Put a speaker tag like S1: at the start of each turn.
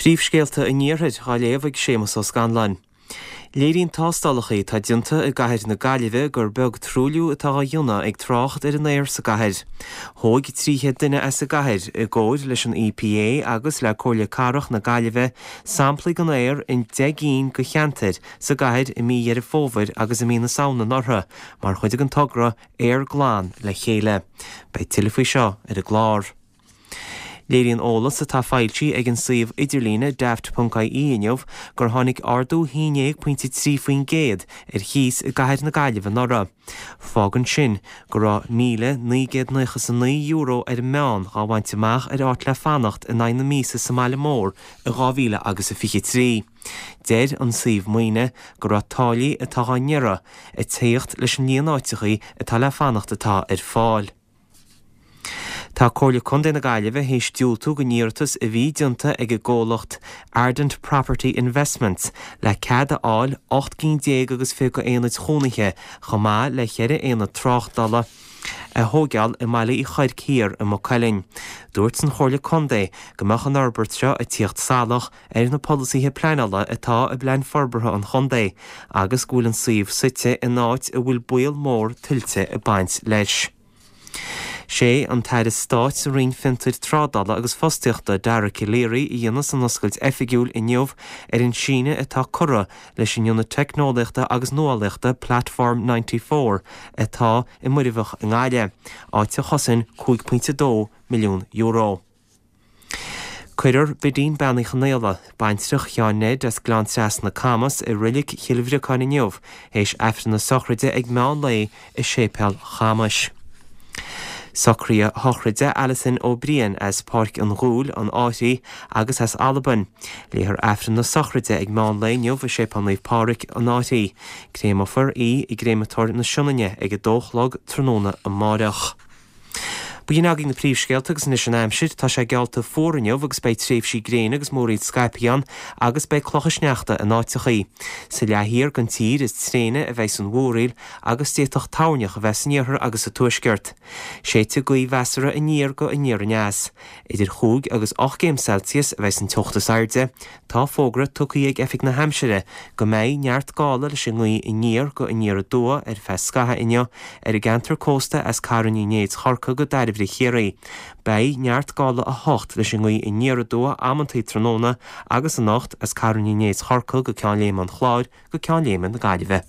S1: Príomhscéalta an Iarthair á léamh ag Séamus Ó Scanláin. Léiríonn tástálacha atá déanta i gcathair na Gaillimhe gur beag truailliú atá á dhéanamh ag trácht ar an aer sa gcathair. Thóg 300 duine as an gcathair, i gcomhair leis an EPA agus le Comhairle Cathrach na Gaillimhe, samplaí den aer in 10 gcinn de cheantair sa gcathair i mí Dheireadh Fómhair agus i mí na Samhna anuraidh mar chuid den togra Aer Glan le Chéile. Beidh tuilleadh faoi seo ar an gclár. Léiríonn eolas atá foilsithe ag an suíomh idirlíne daft.ie inniu gur tháinig ardú 11.3% ar chíos i gcathair na Gaillimhe anuraidh. Fágann sin go raibh €1,999 ar an meán dhá bhaint amach ar áit le fanacht in aghaidh na míosa sa mbaile mór i 2000 agus a 23. Deir an suíomh maoine go raibh táillí atá dhá n-iarraidh ag tíocht leis an líon áiteachaí atá le fanacht atá ar fáil. Tá Comhairle Contae na Gaillimhe théis diúltú don iarratas a bhí déanta ag an gcomhlacht Ardent Property Investments le cead a fháil 18 gcinn agus 20 d'aonaid chónaithe chomh maith le cheithre aonad tráchtála a thóigeáil i mBaile Uí Chuirc Thiar i Maigh Cuilinn. Dúirt an Chomhairle Contae go mbeadh an fhorbairt seo ag tíocht salach ar na polasaithe pleanála atá i bPlean Forbartha an Chontae agus go bhfuil an suíomh suite in áit a bhfuil baol mór tuilte ag baint leis. Sé an tAire Stáit sa Roinn Fiontair Trádála agus Fostaíochta, Dara Calleary, a dhéanfas an oscailt oifigiúil inniu ar an síneadh atá curtha leis an Ionad Teicneolaíochta agus Nuálaíochta Platform 94 atá i Muirbheach i nGaillimh, áit a chosain €5.2 milliún. Cuirfear Bidín Bean Uí Chonaola, baintreach Sheáin Ned as Gleann Trasna, Camas, i Reilig Chill Bhriocáin inniu théis Aifreann na sochraide ag meán lae i Séipéal Chamais. Socruithe sochraide Alison Ó Briain as Páirc an Ghuail, an Fhairche agus as Albain. Léifear Aifreann na sochraide ag meán lae inniu i Séipéal Naomh Pádraig, an Fhairche. Créamofar í i gCréamatóir na Sionainne ag 2 a chlog tráthnóna amáireach. B'in agaibh na príomhscéalta agus anois an aimsir. Tá sé geallta fuar inniu agus beidh tréimhsí gréine agus múraíl scaipthe ann agus beidh clocha sneachta in áiteachaí. Sa leath thiar den tír is tréine a bheidh an mhúraíl agus d'fhéadfadh toirneach a bheith san iarthar agus sa tuaisceart. Séidfidh gaoth mheasartha aniar go aniar aneas. Idir chúig agus 8 gcéim Celsius a bheidh an teocht is airde. Tá fógra tugtha ag Oifig na hAimsire go mbeidh neart gála leis an ngaoth aniar go aniar aduaidh ar feadh scaithimh inniu ar an gceantar cósta as Carn Uí Néid Chorcaí go Dairbhre Chiarraí. Beidh neart gála 8 leis an ngaoth aniar aduaidh amantaí tráthnóna agus anocht as Carn Uí Néid Chorcaí go Ceann Léime an Chláir go Ceann Léime na Gaillimhe.